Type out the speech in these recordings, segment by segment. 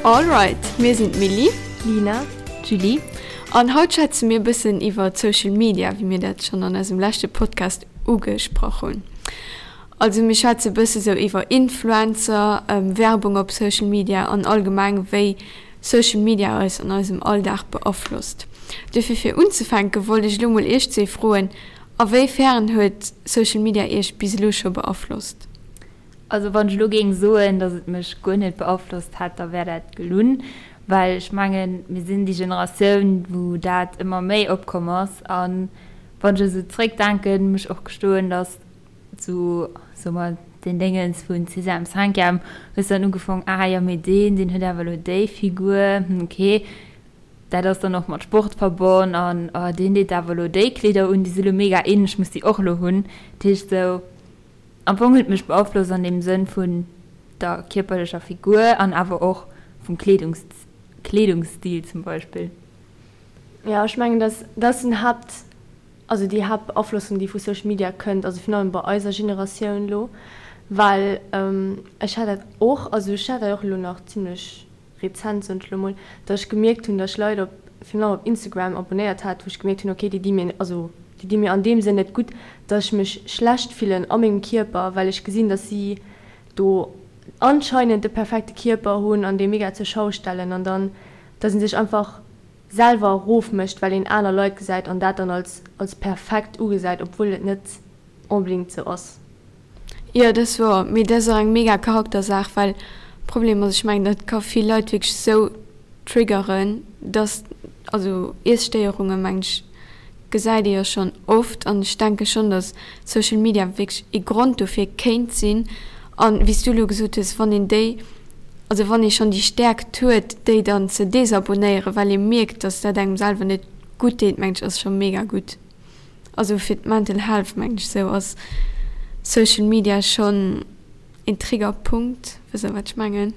Alright, mir sinn d'Milly, Lina, Julie an haut schwätze mir e bëssen iwwer Social Media, wéi mir dat schonn an eisem leschte Podcast ugesprach hunn. Also mir schwätze e bësse sou iwwer Influencer, Werbung op Social Media an allgemeng wéi Social Media eis an eisem Alldag beaflosst. Dofir fir unzefänke wollt ech elo mol iech zwee froen, A wéi fern huet Social Media iech bis elo scho beaflosst? Also wann ech elo géing soen, datt et mech guer net beaflosst hätt, da wär dat gelunn, well ech mengen, mir sinn déi Generatioun, wou dat ëmmer méi opkomm ass. A wann ech esou zréckdenken, muss ech och gestoen, datt esou, soe mer, deen Déngens vun Sixième, Cinquième hues dann ugefong, ah jo, mee deen, deen huet awer elo déi Figur, hm, okay. Dat ass dann och mat Sport verbonn an oh deen deet awer elo déi Kleeder un, déi si lo mega in, ech muss déi och elo hunn. Dat heescht esou, am Fong huet et mech beaflosst an deem Sënn vun der kierperlecher Figur an awer och vum Kleedungs Kleedungsstil zum Beispill. Jo, ech mengen dass dat ass den Haapt, also déi Haaptbeaflossung déi vu Social Media kënnt, also virun allem bei eiser Generatioun elo, well ech hat dat och, also ech hat dat och elo nach zimlech rezent, soen ech elo mol, datt ech gemierkt hunn, datt ech Leit op, virun allem op Instagram abonnéiert hat, wou ech gemierkt hunn, okay, déi di mir, also déi di mir an deem Sënn net gutt, datt ech mech schlecht fillen a mengem Kierper, well ech gesinn, datt si do anscheinend de perfekte Kierper hunn an dee mega zur Schau stellen an dann, datt ee sech einfach selwer erofmécht, well een aner Leit gesäit an dat dann als als perfekt ugesäit, obwuel et net onbedéngt sou ass. Jo, dat ass wouer, mee dat ass och eng mega Charaktersaach, well Problem ass, ech mengen dat ka vill Leit wierklech sou triggeren, dass, also Iesstéierunge mengen ech gesäit ee jo schonn oft an ech denke schonn, dass Social Media wierklech ee Grond dofir kéint sinn an wéi s du elo gesot hues, wann een déi, also wann ee schonn déi Stäerkt huet déi dann ze desabonnéieren, well ee mierkt, dass dat engem selwer net gutt deet, mengen ech ass scho mega gutt. Also fir d'Mental Health mengen ech sou ass Social Media schonn een Triggerpunkt, wësst der wat ech mengen?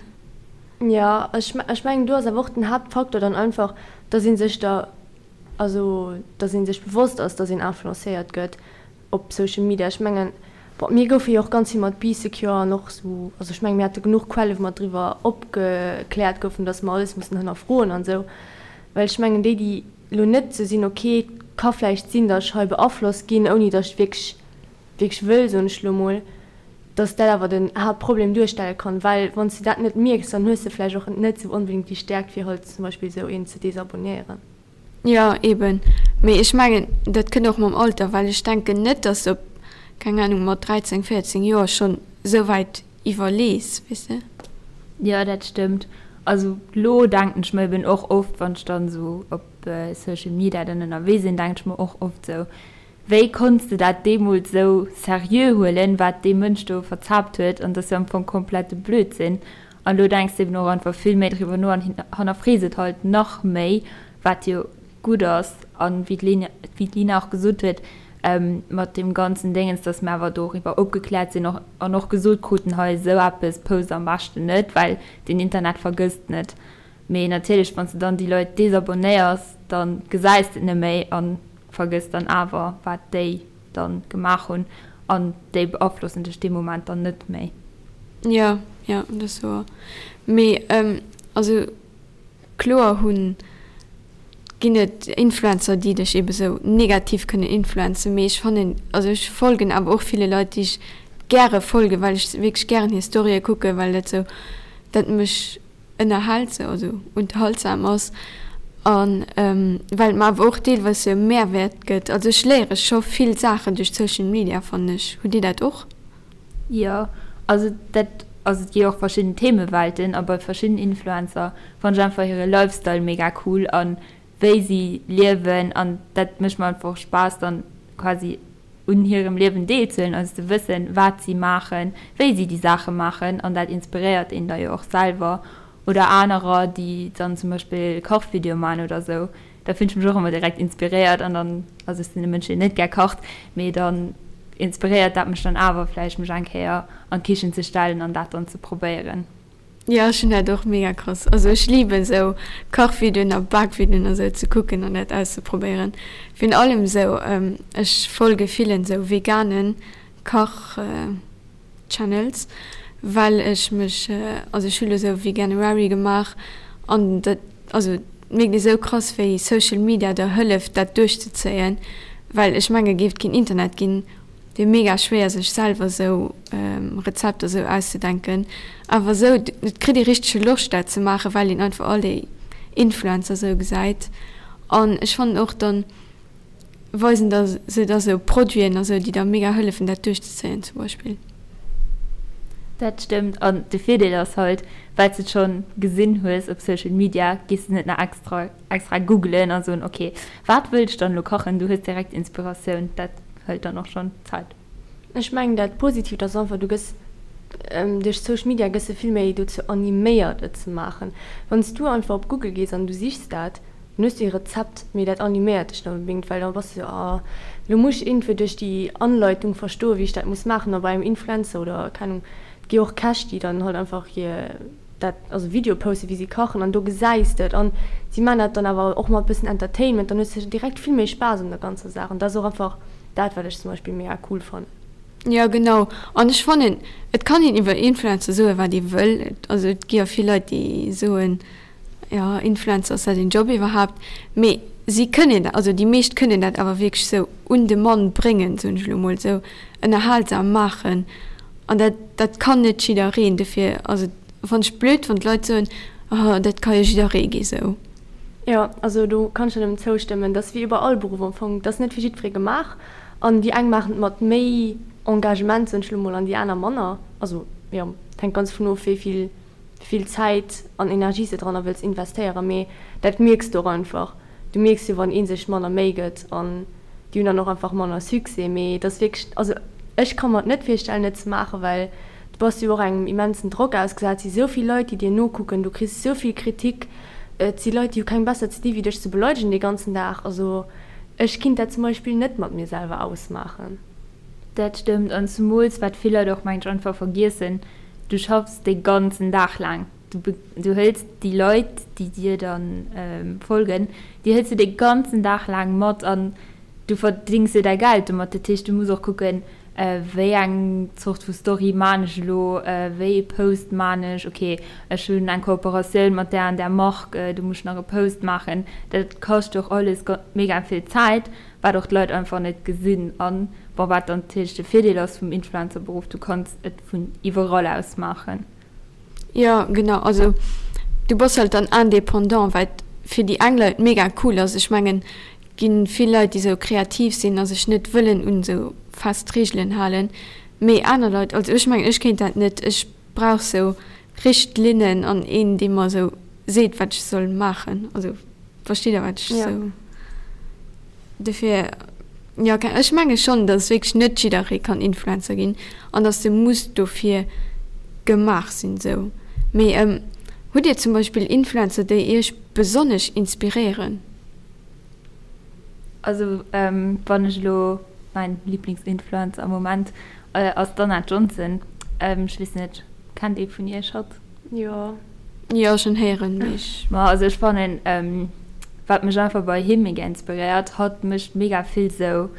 Jo, ech ech mengen do ass awer och den Haaptfaktor dann einfach, dass ee sech der, also dass ee sech bewosst ass, dass een influencéiert gëtt op Social Media. Ech mengen, bon mir goufe jo och ganz vill mat Bee Secure an och sou, also ech mengen mir hate genuch Quelle wou mer driwwer opgekläert goufen, dass mer alles mussen hënnerfroen an sou, well ech mengen déi déi Lo net ze sinn, ok, et ka vläicht sinn, datt ech hei beaflosst ginn, ouni datt ech wierklech, wierklech wëll, soen ech lo mol, datt dat awer den Haaptproblem duerstelle kann, well wann s de dat net mierks, dann hues de vläicht och net sou onbedéngt déi Stäerkt, fir halt zum Beispill esou een ze desabonnéieren. Jo, eben. Mee ech mengen, dat kënnt och mam Alter, well ech denken net, datt s de op, keng Anung, mat 13, 14 Joer schonn esou wäit iwwerlees, weess de. Jo, dat stëmmt. Also lo denken ech mer eben och oft, wann ech dann esou op Social Media dann ënnerwee sinn, denken ech mer och oft esou, wéi konns de dat deemools esou seriö huelen, wat dee Mënsch do verzaapt huet, an dat ass jo am Fong komplette Blödsinn. An lo denks de eben och einfach vill méi driwwer no an hannerfrees et halt nach méi, wat jo gutt ass. An wéi d'Lina och gesot huet, mat deem ganzen Déngens, dass mir awer doriwwer opgekläert sinn och an och gesot kruten, hei esou eppes post am beschten net, well den Internet vergësst net. Mee natierlech, wann s de dann déi Leit desabonnéiers, da gesäis de et net méi a vergëss dann awer, wat déi da gemaach hunn an déi beaflossen dech dee Moment dann net méi. Jo, jo, dat ass wouer. Mee also Kloer hunn, ginn et Influencer déi dech ebe sou negativ kënnen influenzen, mee ech fannen, also ech folgen awer och ville Leit déi ech gäre folgen, well ech wierklech gären hir Storye kucken, well dat sou, dat mech ënnerhält sou, also unterhaltsam ass an well et mer awer och deelweis sou e Mehrwäert gëtt. Also ech léiere scho vill Saachen duerch Social Media fannen ech. Hutt dir dat och? Jo, also dat, also et gi jo och verschidden Themewelten a bei verschidden Influencer fannen ech einfach hire Lifestyle mega cool an wéi si liewen an dat mécht mer einfach och Spaass dann quasi un hirem Liewen deelzehuelen, also ze wëssen wat si maachen, wéi si déi Saache maachen an dat inspiréiert een da jo och selwer oder anerer déi dann zum Beispill Kachvideoe maachen oder sou, Da fillen ech mech och ëmmer direkt inspiréiert an dann, also ech sinn e Mënsch deen net gär kacht, mee dann inspiréiert dat mech dann awer vläicht mech eng Kéier an d'Kichen ze stellen an dat dann ze probéieren. Jo ech hunn dat och mega krass, also ech liben sou Kachvideoen a Bakvideoen a sou ze kucken an dat auszeprobéieren. Virun allem sou, ech folge villen sou veganen Kach Channels. Well ech mech, also ech hu lo sou Veganuary gemaach an dat, also et mierkt ee sou krass wéi Social Media der hëlleft dat duerchzezéien, well ech menge géif et keen Internet ginn, wier mega schwéier sech selwer sou Rezepter sou auszedenken. Awer sou, et kritt ee richtege Loscht dat ze maachen, well een einfach all déi Influencer sou gesäit an ech fannen och dann weisen da se da sou Produiten a sou, déi da mega hëllefen dat duerchzezéien zum Beispill. Dat stëmmt an de Virdeel ass halt, well s de et schonn gesinn hues op Social Media, gees de net nach extra extra googelen a soen ok wat wëll ech dann elo kachen, du hues direkt Inspiratioun, dat hëlt dann och schonn Zäit. Ech mengen dat Positiivt ass einfach, du gëss duerch Social Media gëss de vill méi dozou animéiert et ze maachen. Wann s du einfach op Google gees an du sichs dat, Dann hues du ee Rezept, mee dat animéiert dech net onbedéngt, well da bass du sou, ah, lo muss ech iergendwéi duerch déi Anleitung verstoen, wéi ech dat muss maachen. A bei engem Influencer oder, keng Ahnung, et gi jo och Käch, déi dann halt einfach hir dat, also Video posten, wéi si kachen an do gesäis de et an si maachen dat dann awer och mat bëssen Entertainment, dann hues de direkt vill méi Spaass un der ganzer Saach an dat ass och einfach dat, wat ech zum Beispill mega cool fannen. Jo, genau. An ech fannen, et kann een iwwer Influencer soen, wat ee wëll. Also et gi jo vill Leit, déi soen, Jo, Influencer, ass dat een Job iwwerhaapt? Mee si kënnen dat, also déi meescht kënnen dat awer wierklech sou un de Mann bréngen, soen ech elo mol, sou ënnerhalsam maachen. An dat, dat kann net jiddereen. Dofir ass et, fannen ech blöd, wann d'Leit soen, oh, dat ka jo jidderee gi sou. Jo, also do kann ech der nëmmen zoustëmmen. Dat ass wéi iwwer all Beruff am Fong, dat ass net fir jiddweree gemaach. An déi eng maachen et mat méi Engagement, soen ech elo mol, an déi aner manner. Also jo, et hänkt ganz dovun of, wéi vill vill Zäit an Energie s de dranner wëlls investéieren, mee dat mierks de och einfach. Du mierks jo wann ee sech manner Méi gëtt an déi hunn dann och einfach manner Succès. Mee et ass wierklech, also ech ka mer et net virstellen et ze maachen, well du bass jo och engem immensen Drock ausgesat, et si sou vill Leit déi dir nokucken, du kriss sou vill Kritik, et si Leit déi hu keng besser ze di wéi dech ze beleidegen dee ganzen Dag. Also ech kinnt dat zum Beispill net mat mir selwer ausmaachen. Dat stëmmt, an zemools wat vill Leit och mengen ech einfach vergiessen, du schaffs dee ganzen Dag laang, du du hëls déi Leit déi dir dann folgen, déi hëls du dee ganzen Dag laang mat an du verdéngs jo däi Geld domat. Dat heescht du muss och kucken, wéi eng Zort vu Story maan ech elo, wéi ee Post maan ech, ok ech hunn eng Kooperatioun mat där an där Mark, do muss ech nach e Post maachen. Dat kascht och alles mega vill Zäit. Wat och d'Leit einfach net gesinn an bon wat dann natierlech de Virdeel ass vum Influencerberuff, du kanns et vun iwwerall aus maachen. Jo genau, also du bass halt dann indépendant, wat fir déi eng Leit mega cool ass. Ech mengen et ginn vill Leit déi sou kreativ sinn a sech net wëllen un sou fest Reegelen halen, mee aner Leit, also ech mengen ech kéint dat net, ech brauch sou Richtlinnen an een dee mer sou seet wat ech soll maachen, also versteet der wat ech sou dofir jo ech menge schonn datt wierklech net jidderee kann Influencer ginn an datt de muss dofir gemaach sinn sou. Mee hutt dir zum Beispill Influencer déi iech besonnesch inspiréieren? Also wann ech elo mäin Lieblingsinfluencer am Moment ass d'Anna Johnson. Ech weess net, kennt ee vun iech hatt? Jo. Jo, schon héieren, mee ech. Ma also ech fannen, wat mech einfach bei him mega inspiréiert, hatt mécht mega vill sou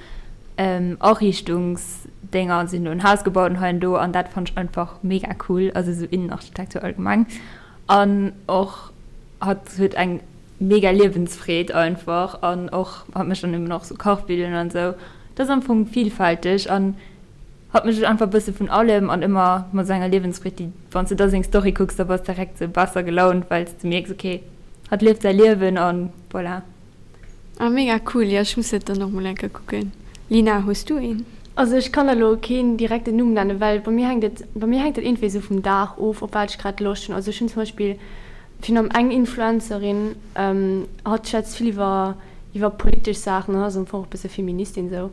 Ariichtungsdénger, si hunn do en Haus gebaut an hei an do an dat fannt ech einfach mega cool, also sou Innenarchitektur allgemeng an och hatt huet eng mega Liewensfreed einfach an och hatt mécht dann eben och sou Kachvideoen an sou. Dat ass am Fong vielfälteg an hatt mécht einfach e bësse vun allem an ëmmer mat sou enger Liewensfreed déi wann s de da seng Story kucks da bass direkt sou besser gelaunt well s de mierks ok hatt lieft säi Liewen an voilà. Ah mega cool, jo ech muss dat dann och mol eng Kéier kucken. Lina, hues du een? Also ech kann der lo keen direkten Numm nennen, well bei mir hänkt et bei mir hänkt dat iergendwéi sou vum Dag of op wat ech grad Loscht hunn. Also ech hunn zum Beispill Virun allem eng Influencerin, hatt schwätzt vill iwwer iwwer politesch Saachen an ass am Fong och e bësse Feministin esou.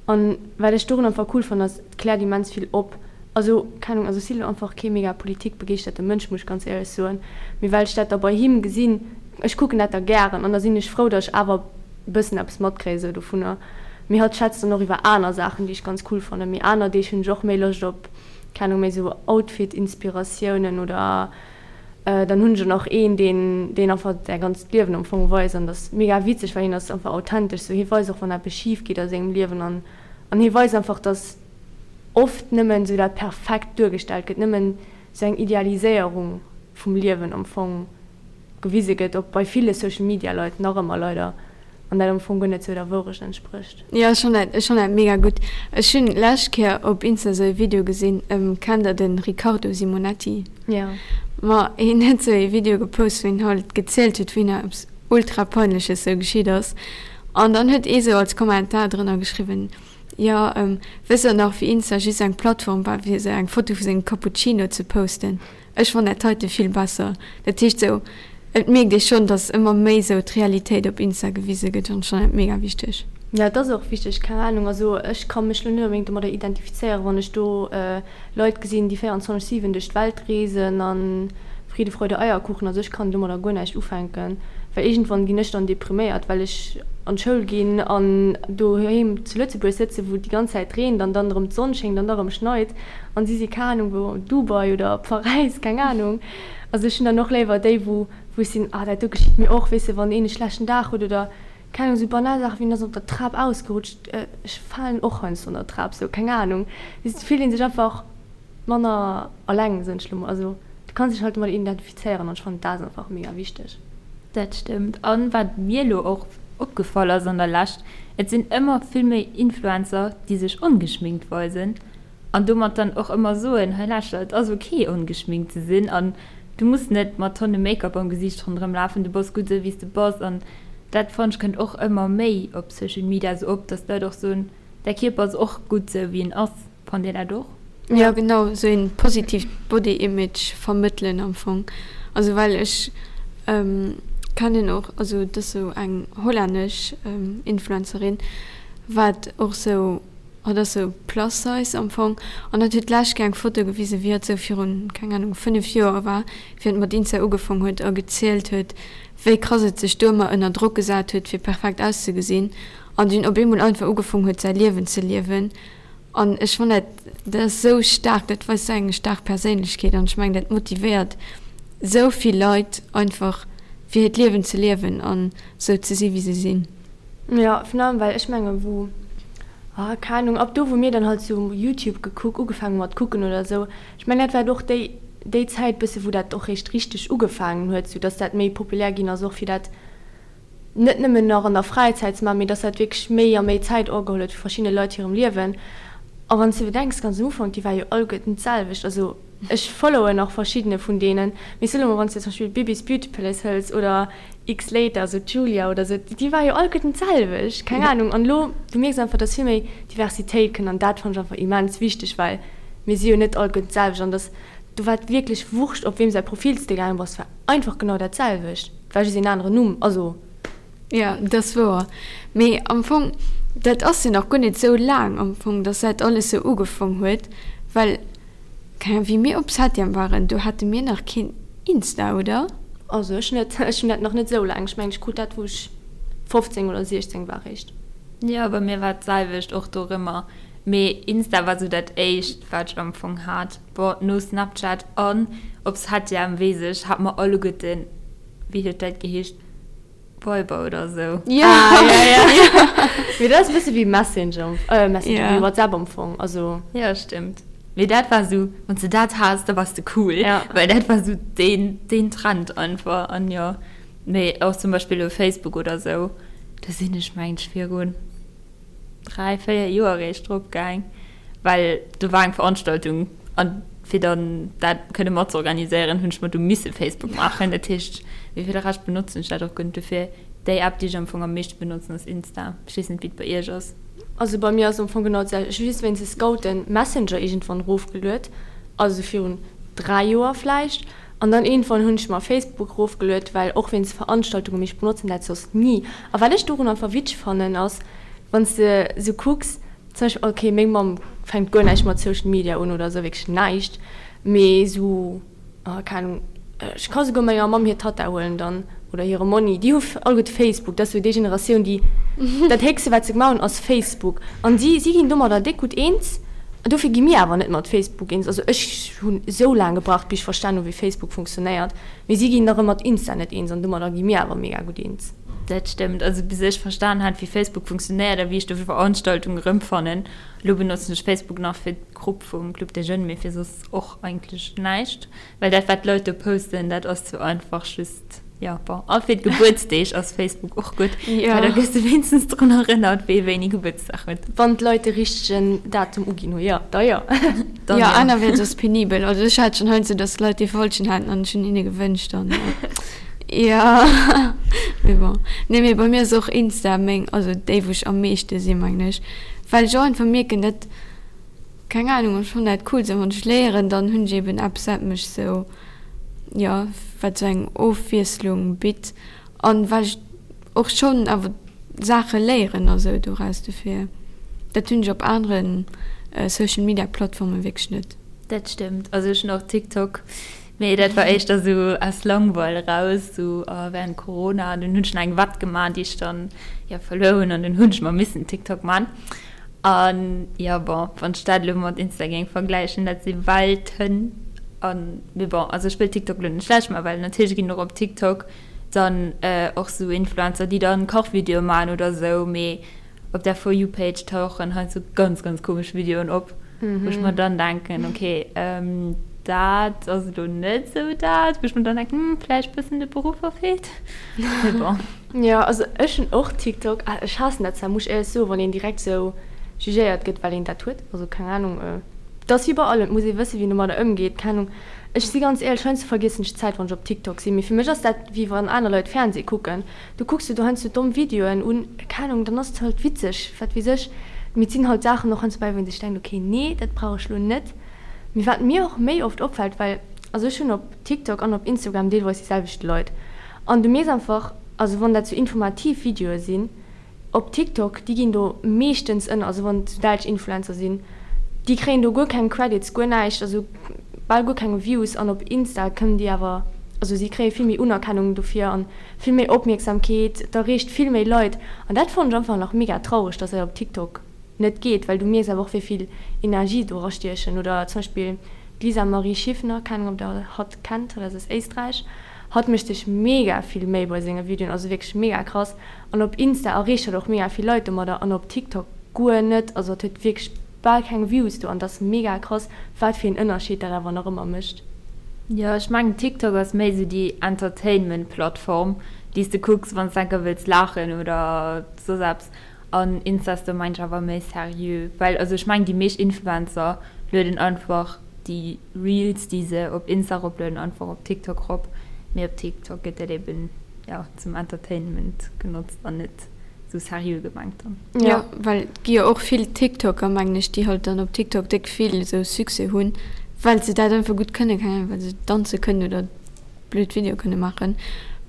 An wat ech dorun einfach cool fannen ass, et kläert immens vill op. Also keng Ahnung, also ech si lo einfach kee mega politikbegeeschterte Mënsch, muss ech ganz éierlech soen, mee well ech dat da bei him gesinn, ech kucken dat da gären an da sinn ech frou, datt ech awer e bëssen eppes matkréie sou dovunner. Mee hatt schwätzt dann och iwwer aner Saachen, déi ech ganz cool fannen. Mee aner Deeg hunn ech och méi Loscht op, keng Ahnung, méi sou Outfit-Inspiratiounen oder Dann hunn ech och nach een, deen, deen einfach säi ganzt Liewen am Fong weist an dat ass mega witzeg, well hien ass einfach authentesch sou. Hie weist och, wann eppes schif geet a sengem Liewen an, an hie weist einfach, dass oft nëmmen sou dat Perfekt duergestellt gëtt, nëmmen. sou eng Idealiséierung vum Liewen am Fong gewise gëtt, och bei ville Social Media Leit nach ëmmer leider, an dat am Fong guer net sou der Wourecht entsprécht. Jo, ech fannen dat, ech fannen dat mega gutt. Ech hunn lescht Kéier op Insta sou e Video gesinn, kennt der den Riccardo Simonetti? Jo. Ma hien huet sou e Video gepost wou hien halt gezielt huet wéi him eppes ultra peinleches sou geschitt ass an dann huet ee sou als Kommentar drënner geschriwwen, jo wësst der nach wéi Insta just eng Plattform war fir sou eng Foto vu sengem Cappuccino ze posten? Ech fannen dat heite vill besser. Dat heescht sou, et mierkt ee schonn, dass ëmmer méi sou d'Realitéit op Insta gewise gëtt an ech fannen dat mega wichteg. Jo, et ass och wichteg, keng Ahnung. Also ech ka mech lo net onbedéngt domadder identifizéieren, wann ech do Leit gesinn, déi 24, 7 duerch d'Welt reesen a Friede, Freude, Eierkuchen. Also ech kann domadder guer näischt ufänken, well iergendwann ginn ech dann depriméiert, well ech an d'Schoul ginn an doheem zu Lëtzebuerg sëtzen, wou et déi ganz Zäit reent an dann erëm d'Sonn schéngt an da erëm schneit. An si si keng Ahnung wou, Dubai oder Paräis, keng Ahnung. Also ech hunn dann och léiwer déi, wou wou ech sinn, ah dat do geschitt mir och, weess de, wann een e schlechten Dag huet oder keng Ahnung, esou banal Saachen wéi en ass op der Trap ausgerutscht, ech falen och heiansdo an der Trap, sou keng Ahnung. Weess de, fillt ee sech einfach manner alleng, soen ech lo mol. Also du kanns dech halt domat identifizéieren an ech fannen dat ass einfach mega wichteg. Dat stëmmt. An wat mir elo och opgefall ass an der Lescht, et sinn ëmmer vill méi Influencer, déi sech ongeschminkt weisen. An domat dann och ëmmer soen, hei lauschter, et ass ok ongeschminkt ze sinn an du muss net mat Tonne Make-up am Gesiicht ronderëm lafen, du bass gutt esou wéi s de bass. An dat fannen ech kënnt och ëmmer méi op Social Media esou op, dass d'Leit och soen, däi Kierper ass och gutt esou wéi en ass. Fannt Dir dat och? Jo genau, esou een positiivt Body Image vermëttelen am Fong. Also well ech kennen och, also et ass esou eng hollännesch Influencerin wat och esou, Hatt ass sou plus size am Fong an hatt huet d'lescht Kéier eng Foto gewisen, wéi hatt sou virun, keng Ahnung, 5 Joer war, wéi hatt mat Insta ugefong huet a gezielt huet, wéi krass et sech do ëmmer ënner Drock gesat huet, fir perfekt auszegesinn an dunn op eemol einfach ugefong huet, säi Liewen ze liewen. An ech fannen dat, dat ass sou staark, dat weist sou eng staark Perséinlechkeet an ech mengen, dat motivéiert sou vill Leit einfach, fir hiert Liewen ze liewen an sou ze si wéi se sinn. Jo, virun allem well ech mengen wou, ah keng Ahnung, ab do wou mir dann halt sou Youtube gekuck, ugefaangen hu mat kucken oder sou, ech mengen dat war och déi déi Zäit bësse wou dat och réischt richteg ugefaangen huet, sou dass dat méi populär ginn ass och fir dat net nëmmen nach an der Fräizäit ze maachen, mee dass dat wierklech méi a méi Zäit ogeholl huet vu verschiddene Leit hirem Liewen. A wann s de bedenks, ganz am Ufank, déi war jo alleguerten d'selwecht, also ech followen nach verschiddene vun deenen, mee soe mol wann s de zum Beispill Bibis Beauty Palace hëls oder X-Later, also d'Julia oder sou, déi war jo alleguerten d'selwecht, keng Ahnung. An elo, du mierks einfach, dass vill méi Diversitéit kënnt an dat fannen ech einfach immens wichteg, well mir si jo net alleguerten d'selwecht an dass, do war et wierklech wurscht, op weem säi Profil s de gaange bass, war einfach genau dat selwecht, et war just een aneren Numm, also. Jo, dat ass wouer. Mee am Fong, dat ass jo nach guer net sou laang am Fong, dass dat alles sou ugefong huet, well Keng Ahnung, wéi mir op Septième waren, do hate mir nach keen Insta, oder? Also ech net, ech hunn dat nach net esou laang. Ech mengen ech krut dat wou ech 15 oder 16 war réischt. Jo, bei mir war et d'selwecht och dorëmmer, mee Insta war sou dat éischt wat ech am Fong hat. Bon, no Snapchat an op Septième weess ech, hate mer alleguerten, wéi huet dat geheescht? Viber oder sou. Ja. Ah, ja, ja. Mee dat ass e bësse wéi Messenger, äh, Messenger, ja. wéi WhatsApp am Fong, also. Ja, stimmt. Mee dat war sou, wann s de dat has, da wars de cool. Ja. Well dat war sou deen, deen Trend einfach. An jo, mee och zum Beispill elo Facebook oder sou, do sinn ech mengt ech virun 3, 4 Joer eréischt drop gaang, well do war eng Veranstaltung an fir dann dat kënne mat ze organiséieren, hunn ech mer du misse Facebook maachen. Dat heescht, mee fir de Rescht benotzen ech dat och guer net. Dofir déi App, déi ech am Fong am meeschte benotzen, ass Insta. Ech weess net, wéi et bei iech ass. Also bei mir ass am Fong genau d'selwecht. Ech hu just wéinst de Scouten Messenger iergendwann erofgeluet, also virun 3 Joer vläicht. An dann iergendwann hunn ech mer Facebook erofgeluet, well och wéinst Veranstaltungen, mee ech benotzen dat soss ni. A wat ech dorun einfach witzeg fannen ass, wann s de sou kucks, zum Beispill, ok, meng Mamm fänkt guer näischt mat Social Media un oder sou, wierklech näischt, mee sou, keng Ahnung, ech ka souguer menger Mamm hir Tatta huelen dann oder hire Monni, déi hu alleguerte Facebook, dat ass sou déi Generatioun, déi dat héchste wat se gemaach hunn ass Facebook an si si ginn domadder déck gutt eens. Dofir gi mir awer net mat Facebook eens. Also ech hunn esou laang gebraucht bis ech verstan hunn wéi Facebook funktionéiert, mee si ginn nach ëmmer mat Insta net eens an domadder gi mir awer mega gutt eens. Dat stëmmt. Also bis ech verstan hat wéi Facebook funktionéiert a wéi ech do Veranstaltungen erëmfannen. Elo benotzen ech Facebook nach fir d'Grupp vum Club des Jeunes, mee fir soss och eigentlech näischt. Well dat wat d'Leit do posten, dat ass zu einfach just, jo bon. A fir d'Gebuertsdeeg ass Facebook och gutt, well da gëss de wéinstens drun erënnert, wee wéini Gebuertsdag huet. Wann d'Leit de richtegen Datum uginn hunn, jo, da jo. Dann jo. Anerwäerts ass penibel. Also ech hat schonn heiansdo, dass d'Leit dee falschen haten an ech hunn hinne gewënscht an jo, mee bon. Nee, mee bei mir ass och Insta meng, also déi wou ech am meeschte sinn, mengen ech, well ech och einfach mierken, dat Keng Ahnung, ech fannen dat cool sou wann ech léieren, dann hunn ech eben eppes wat mech sou, jo wat sou eng Ofwiesslung bitt an well ech och schonn awer Saache léieren a sou doraus, dofir dat hunn ech op aneren Social Media Plattformen wierklech net. Dat stëmmt, also ech hunn och TikTok, mee dat war éischter sou aus Langweil eraus, sou während Corona, an dunn hunn ech nach eng Wett gemaach déi ech dann jo verluer hunn an dunn hunn ech mer missen TikTok man. An jo, bon, wann ech dat elo mat Insta géing vergläichen, dat si Welten. An, mee bon, also ech wëll TikTok elo net schlecht maachen, well natierlech ginn och op TikTok dann och sou Influencer, déi dann Kachvideoe maachen oder sou, mee op der For You Page tauchen heiansdo ganz, ganz komesch Videoen op, wou ech mer dann denken, okay, dat ass elo net sou dat, wou ech mer dann denken, hm, vläicht bëssen de Beruff verfeelt, mee bon. Jo, also ech hunn och TikTok. Ech haassen dat zwar, muss ech éierlech soen, wann een direkt sou jugéiert gëtt, well een dat huet. Also keng Ahnung, et ass wéi bei allem, et muss ee wëssen, wéi een domadder ëmgeet. Keng Ahnung, ech si ganz éierlech, heiansdo vergiessen ech d'Zäit, wann ech op TikTok sinn. Mee fir mech ass dat wéi wann aner Leit Fernseh kucken. Du kucks de do heiansdo domm Videoen un, keng Ahnung, dann ass et halt witzeg, wat weess ech. Mee et sinn halt Saachen och heiansdo bäi, wou een sech denkt, okay, nee, dat brauch ech lo net. Mee wat mir och méi oft opfält, well also ech hunn op TikTok an op Instagram deelweis déi selwecht Leit, An du mierks einfach, also wann dat sou informativ Videoe sinn op TikTok, déi ginn do meeschtens ënner, also wann et sou däitsch Influencer sinn, déi kréien do guer keng Credits, guer näischt, also bal guer keng Views an op Insta kënnen déi awer, also si kréie vill méi Unerkennung dofir an vill méi Opmierksamkeet, et erreecht vill méi Leit an dat fannen ech einfach nach mega traureg, dass dat op TikTok net geet, well du mierks awer och wéi vill Energie do erastiechen oder zum Beispill d'Lisa Marie Schiffner, keng Ahnung ob der hatt kennt, hatt ass aus Éisträich, Hatt mécht sech mega vill Méi bei senge Videoen, also wierklech mega krass. An op Insta erreecht hatt och mega vill Leit domadder an op TikTok guer net. Also hatt huet wierklech bal keng Views do an et ass mega krass wat fir een Ënnerscheed dat awer nach ëmmer mécht. Jo, ech mengen TikTok ass méi sou déi Entertainment Plattform déi s de kucks wann s enker wëlls laachen oder soss eppes. An Insta ass do mengen ech awer méi seriö, well also ech mengen déi meescht Influencer lueden einfach déi Reels déi se op Insta eroplueden einfach op TikTok rop, mee op TikTok gëtt dat eben jo zum Entertainment genotzt an net sou seriö gemengt dann. Jo, well et gi jo och vill TikToker mengen ech déi halt dann op TikTok déck vill sou Succès hunn, well se dat einfach gutt kënnen, keng Ahnung, well se danze kënnen oder blöd Videoe kënne maachen,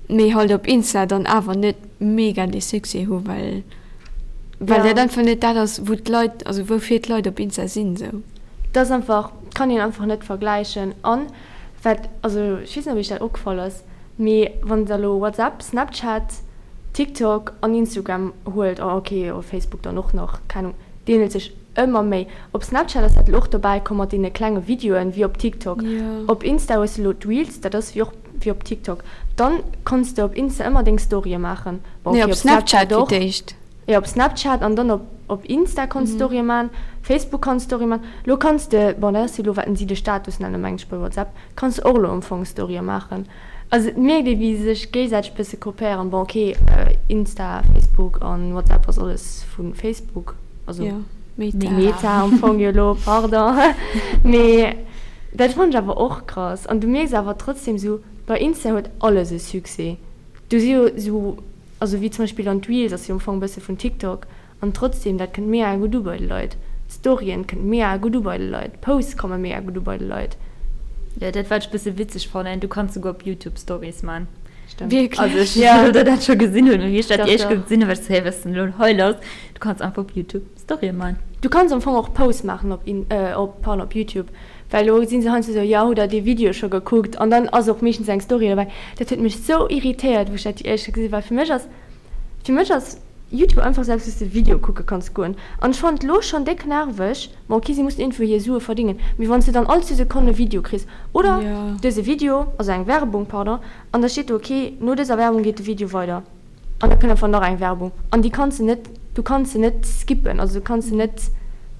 mee halt op Insta dann awer net mega dee Succès hu well well dat einfach net dat ass wou d'Leit, also woufir d'Leit op Insta sinn sou. Dat ass einfach, kann een einfach net vergläichen. An wat, also ech weess net ob iech dat opgefall ass, mee wann der elo WhatsApp, Snapchat, TikTok an Instagram huelt, oh ok, oh Facebook dann och nach, keng Ahnung, d'ähnelt sech ëmmer méi. Op Snapchat ass dat elo och dobäi komm mat deene klenge Videoen, wéi op TikTok. Op Insta hues de elo d'Reels, dat ass wéi och wéi op TikTok. Dann konns de op Insta ëmmer deng Storye maachen. Bon ok, op Snapchat och. Jo, op Snapchat an dann op op Insta konns Storye man, Facebook kanns Storye man. Lo kanns de, bon dat ass jo elo wat si de Status nennen meng ech bei WhatsApp, kanns de och elo am Fong Storye maachen. Also et mierkt ee wéi se sech géigesäiteg bësse kopéieren. Bon ok, Insta, Facebook an WhatsApp ass alles vu Facebook, also Meta. Meta am Fong jo elo, pardon. Mee dat fannen ech awer och krass. An du mierks awer trotzdem sou, bei Insta huet alles e Succès. Do si jo sou, also wéi zum Beispill dann d'Reels ass jo am Fong e bësse vun TikTok an trotzdem, dat kënnt mega gutt u bei de Leit. D'Storien kënnt mega gutt u bei de Leit, d'Posts komme mega gutt u bei de Leit. Jo, dat wat ech bësse witzeg fannen, du kanns souguer op YouTube Stories man. Stemmt. Wierklech? Also ech weess net, ob der dat scho gesinn hutt, mee wéi ech dat déi éischt Kéier gesinn hunn, war ech sou, hé, wat ass denn elo hei lass? Du kanns einfach op YouTube Storien man. Du kanns am Fong och Posts maachen op In, op, pardon, op YouTube. Well elo si se heiansdo esou, jo, hutt der dee Video scho gekuckt? An dann ass och meeschtens eng Story dobäi. Dat huet mech sou irritéiert, wou ech dat déi éischt Kéier gesinn hunn, well fir mech ass, fir mech ass Youtube einfach esou eppes, wou s de Video kucke kanns goen. An ech fannen et elo schonn déck nerveg, bon ok, si mussen iergendwou hir Sue verdéngen, mee wann s de dann all zwou Sekonnen e Video kriss, oder dëse Video, also eng Werbung, pardon, an da steet do, ok, no dëser Werbung geet de Video weider. An da kënnt einfach nach eng Werbung. An déi kanns de net, du kanns se net skippen, also du kanns se net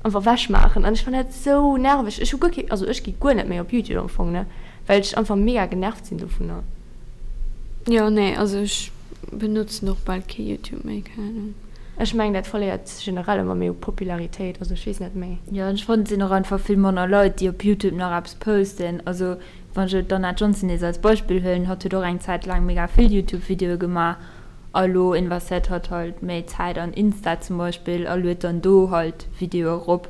einfach wechmaachen. An ech fannen dat sou nerveg. Ech hu guer kee, also ech gi guer net méi op Youtube am Fong, ne, well ech einfach mega genervt sinn dovunner. Jo, nee, also ech benotzen och bal kee Youtube méi, keng Ahnung. Ech mengen dat verléiert generell ëmmer méi u Popularitéit, also ech weess net méi. Jo, an ech fannen et sinn och einfach vill manner Leit déi op Youtube nach eppes posten. Also wann ech elo d'Anna Johnson nees als Beispill huelen, hatt huet och eng Zäit laang mega vill Youtube Videoe gemaach a elo investéiert hatt halt méi Zäit an Insta zum Beispill a luet dann do halt Videoe erop,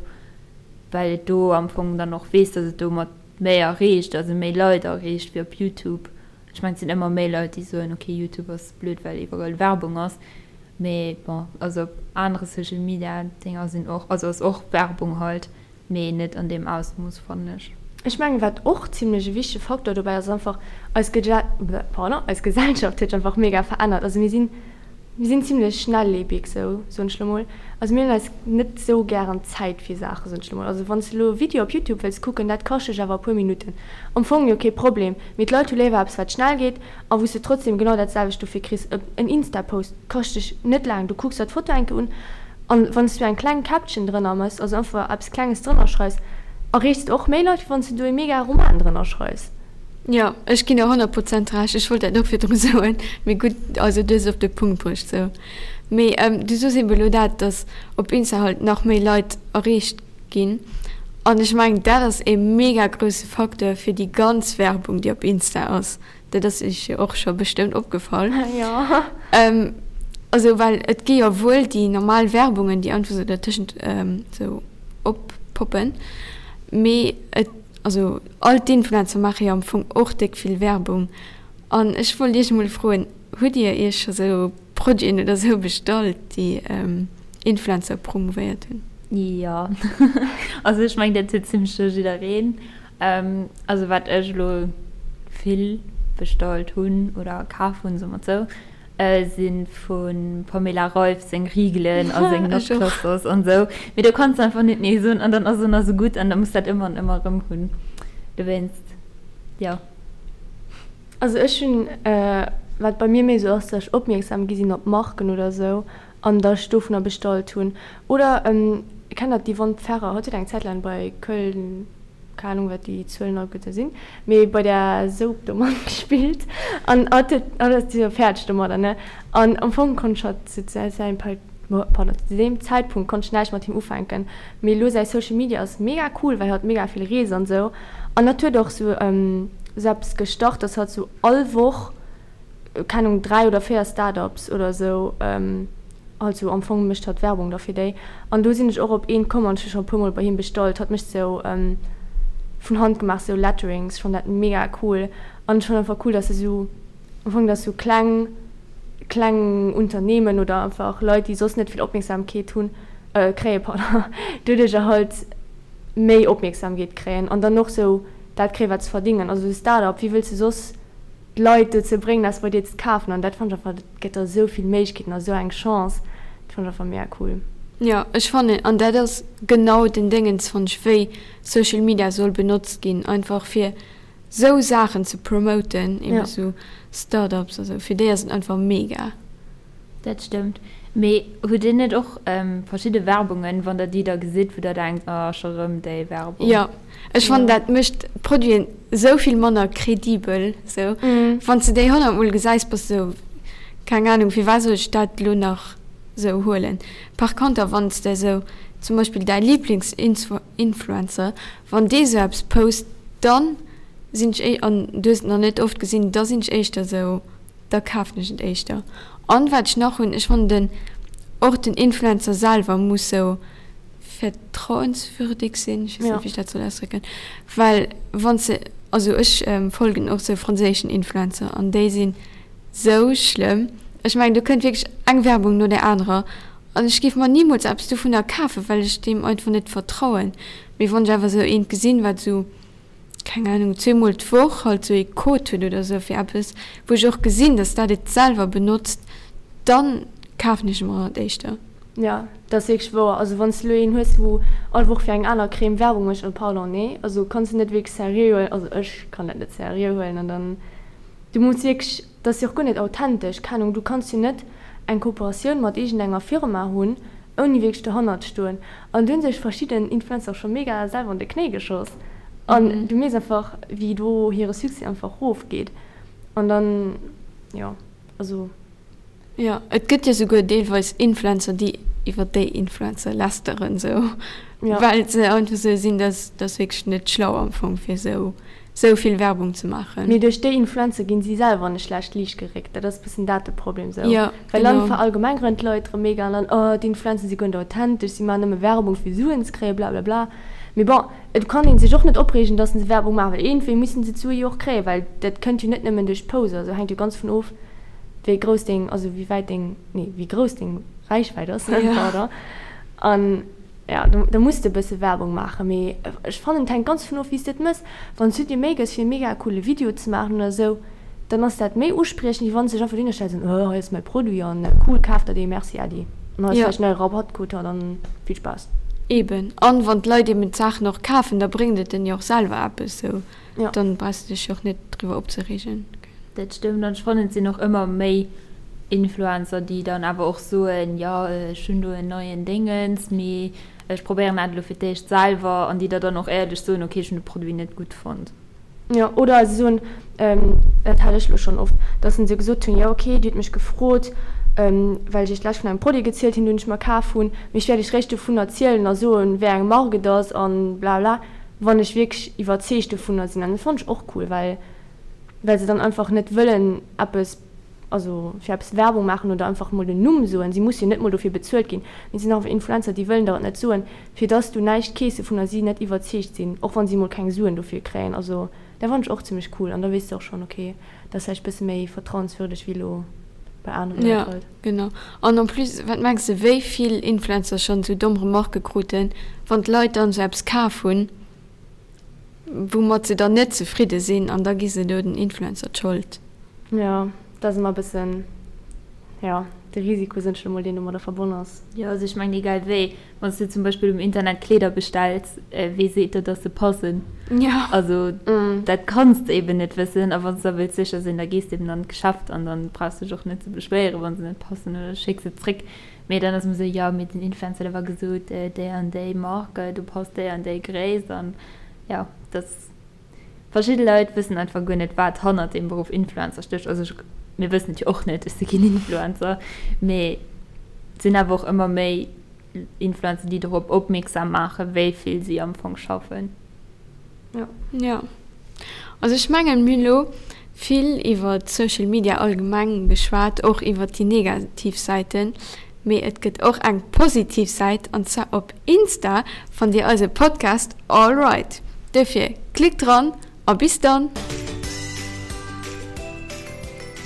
well et do am Fong dann och weess, dass et domat méi erreecht, also méi Leit erreecht wéi op Youtube. Ech mengen et sinn ëmmer méi Leit déi soen, ok Youtube ass blöd well iwwerall Werbung ass, mee bon also op anere Social Media Dinger sinn och, also ass och Werbung halt, mee net an deem Ausmooss fannen ech. Ech mengen wat och zimlech e wichtege Faktor dobäi ass, ass einfach eis pardon eis Gesellschaft huet sech einfach mega verännert. Also mir sinn Mir sinn zimlech schnelllebig, sou soen ech lo mol. Also mir hunn eis net sou gären Zäit fir Saachen, soen ech lo mol. Also wann s de lo e Video op Youtube wëlls kucken, dat kascht dech awer e puer Minutten. Am Fong jo kee Problem, mee d'Leit hu léiwer eppes wat schnell geet a wou s de trotzdem genau dat selwecht dofir kriss. En Insta-Post kascht dech net laang, du kucks der d'Foto eng Kéier un an wann s du eng kleng Caption drënner mëss, also einfach eppes Klenges drënner schreifs, erreechs de och méi Leit, wéi wann s de do ee mega Roman drënner schreifs. Jo, ech ginn der 100 Prozent Recht. Ech wollt dat och virdru soen, mee gutt, also du hues et op de Punkt bruecht sou. Mee du soos eben elo dat, datt op Insta halt nach méi Leit erreecht ginn an ech mengen dat ass ee mega grousse Facteur fir déi ganz Werbung déi op Insta ass. Dat ass iech jo och scho bestëmmt opgefall. Jo. Also well et gi jo wuel déi normal Werbungen déi einfach sou dertëschent sou oppoppen, mee et Also all d'Influencer maache jo am Fong och déck vill Werbung. An ech wollt iech emol froen, hutt dir iech scho sou Produiten oder sou bestallt, déi Influencer promouvéiert hunn? Jo, also ech mengen dat huet zimlech scho jiddereen. Also wat ech elo vill bestallt hunn oder kaf hunn, soe mer et sou, Si vum Pamela Reif seng Rigelen a seng Notclusters an esou. Mee do kanns de einfach net nee soen an dann ass et nach esou gutt an da muss dat ëmmer an ëmmer erëm hunn. Dowéinst, jo. Also ech hunn, wat bei mir méi esou ass, datt ech opmierksam gi sinn op Marken oder esou an datt ech dovunner bestallt hunn. Oder kennt der d'Yvonne Pferrer? Hatt huet eng Zäit laang bei Köln. keng Ahnung wat déi Zuelen alleguerte sinn, mee bei där Soap do matgespillt an hatt huet, hatt ass jo fäerdeg domadder, ne? An am Fong konnt ech hatt zu säim pardon, zu deem Zäitpunkt konnt ech näischt mat him ufänken, mee elo säi Social Media ass mega cool, well hatt mega vill reest an esou an hatt huet och sou sou eppes gestart, dass hatt sou all Woch, keng Ahnung, 3 oder 4 Start-ups oder sou, Also am Fong mécht hatt Werbung da fir déi. An do sinn ech och op eent komm an ech hu scho e puer mol bei him bestallt. Hatt mécht sou vun Hand gemaach sou Letterings. Ech fannen dat mega cool. An ech fannen einfach cool, dass e sou am Fong dass sou kleng kleng Unternehmen oder einfach Leit déi soss net vill Opmierksamkeet hunn kréien, pardon, doduercher halt méi Opmierksamkeet kréien an dann och sou dat kréien wat se verdingen. Also sou Start-up, wéi wëlls de soss d'Leit dozou bréngen eppes bei dir ze kafen an dat fannen ech einfach, dat gëtt der esou vill Méiglechkeeten a sou eng Chance, dat fannen ech einfach mega cool. Jo, ech fannen, an dat ass genau den Déngens fannen ech, wéi Social Media soll benotzt ginn, einfach fir sou Saachen ze promoten, eben sou Startups a sou, fir déi ass et einfach mega. Dat stëmmt. Mee hutt dir net och verschidde Werbungen, wann der déi da gesitt, wou der denkt, oh scho rëm déi Werbung? Jo, ech fannen dat mécht d'Produiten esou vill manner credibel sou. Wann s de déi 100 mol gesäis, bass de sou, keng Ahnung, firwat soll ech dat elo nach sou huelen? Par konter wann s de sou zum Beispill däi Lieblingsinfluencer, wann dee sou eppes post, dann sinn ech, an du hues et nach net oft gesinn, da sinn ech éischter sou, da kafen ech et éischter. An wat ech nach hunn, ech fannen den och den Influencer selwer muss sou vertrauenswürdig sinn, ech weess net wéi ech dat soll ausdrécken, well wann s de, also ech folgen och sou franséischen Influencer an déi sinn sou schlëmm, ech mengen do kënnt wierklech eng Werbung no där anerer an ech géif mer nimools eppes dovunner kafen, well ech deem einfach net vertrauen. Mee wann ech awer sou eent gesinn, wat sou keng Ahnung, zweemol d'Woch halt sou ee Code huet oder sou fir eppes, wou ech och gesinn, dass dat et selwer benotzt, dann kafen ech mer et éischter. Jo, dat ass wierklech wouer. Also wann s de elo een hues, wou all Woch fir eng aner Crème Werbung mécht, oh pardon, nee, also kanns de net wierklech seriö huelen, also ech kann dat net seriö huelen an dann, du muss wierklech, dat ass jo och guer net authentesch, keng Ahnung, du kanns jo net. eng Kooperatioun mat iergendenger Firma hunn, ouni wierklech dohannert stoen. An do hu sech verschidden Influencer och scho mega selwer an de Knéi geschoss. An du mierks einfach, wéi do hire Succès einfach rofgeet. An dann, jo, also. Jo, et gëtt jo souguer deelweis Influencer, déi iwwer déi Influencer lästeren, sou, well se einfach sou sinn, dass dass wierklech net schlau am Fong fir sou sou vill Werbung ze maachen. Mee duerch déi Influencer ginn si selwer an e schlecht Liicht geréckt, dat ass bëssen dat de Problem sou, well dann verallgemengeren d'Leit erëm mega an dann, oh d'Influencer si guer net authentesch, si maachen nëmme Werbung fir Suen ze kréien, blablabla. Mee bon, et kann ee sech och net opreegen, dass se Werbung maachen, well iergendwéi mussen se d'Sue jo och kréien, well dat kënnt jo net nëmmen duerch d'Poser, also hänkt jo ganz vun of, wéi grouss deng, also wéi wäit deng, nee, wéi grouss deng Räichwäit ass, pardon. An ja, do, do muss de e bësse Werbung maachen, mee ech fannen, et hänkt ganz dovun of, wéi s de et mëss. Wann s du dir Méi gëss, fir e mega coole Video ze maachen oder esou, dann ass dat méi uspriechend, wéi wann s de dech einfach dohinner stells an, oh, hei ass mäi Produit an cool, kaf der dee, merci, äddi. An hei ass vläicht en neie Rabattcode, ja, dann vill Spaass. Eben. An wann d'Leit eben d'Saachen och kafen, da bréngt et en jo och selwer eppes, sou. Dann brauchs de dech jo och net driwwer opzereegen. Dat stëmmt an ech fannen et sinn och ëmmer méi Influencer déi dann awer och soen, jo ech hunn do en neien Déngens, mee ech probéieren dat elo fir d'éischt selwer an déi der dann och éierlech soen, ok ech hunn de Produit net gutt fonnt. Jo, oder se soen, dat hat ech elo schonn oft, datt se esou gesot hunn, jo ok dir hutt mech gefrot, well ech iech d'lescht vun engem Produit gezielt hunn, deen ech mer kaf hunn, mee ech wäert iech réischt dovun erzielen a soen, wéi eng Mark et ass an blabla, wann ech wierklech iwwerzeegt dovunner sinn. An dat fannen ech och cool, well well se dann einfach net wëllen eppes, also fir eppes Werbung maachen oder einfach mol den Numm soen. Si musse jo net mol dofir bezuelt ginn, mee et sinn einfach Influencer, déi wëllen der et net soen, fir dass du näischt kees dovunner si net iwwerzeegt sinn, och wann si mol keng Suen dofir kréien. Also dat fannen ech och zimmlech cool an da weess de och schonn, ok, dat ass vläicht bësse méi vertrauenswürdeg wéi elo bei anere Leit halt. Jo, genau. An en plus, wat mengs de wéi vill Influencer schonn esou domm Remarquë kruten, wann d'Leit dann esou eppes kaf hunn? Woumat se dann net zefridde sinn an da gi se do den Influencer d'Schold. Jo, dat ass ëmmer e bëssen, jo, de Risiko, soen ech elo mol, deen domadder verbonn ass. Jo, also ech mengen, egal wéi, wann s du zum Beispill um Internet Kleeder bestells, wee seet der, dass se passen? Jo. Also dat kanns de eben net wëssen. A wann s de da wëlls sécher sinn, da gees de eben an d'Geschäft an dann brauchs de dech och net ze beschwéieren, wa se net passen oder schécks se zréck. Mee dann ass ëmmer esou, jo, mee den Influencer, dee war gesot, déi an déi Marque, do passt déi an déi Gréisst an jo, dass verschidde Leit wëssen einfach guer net, wat hannert dem Beruff Influencer stécht. Also ech, mir wëssen et jo och net, ech si keen Influencer, mee et sinn awer och ëmmer méi Influencer, déi dorop opmierksam maachen, wéi vill si am Fong schaffen. Jo. Also ech mengen, mir hunn elo vill iwwer Social Media allgemeng geschwat, och iwwer déi negativ Säiten, mee et gëtt och eng positiv Säit an zwar op Insta fannt Dir eise Podcast All Right. Dofir klickt dran a bis dann!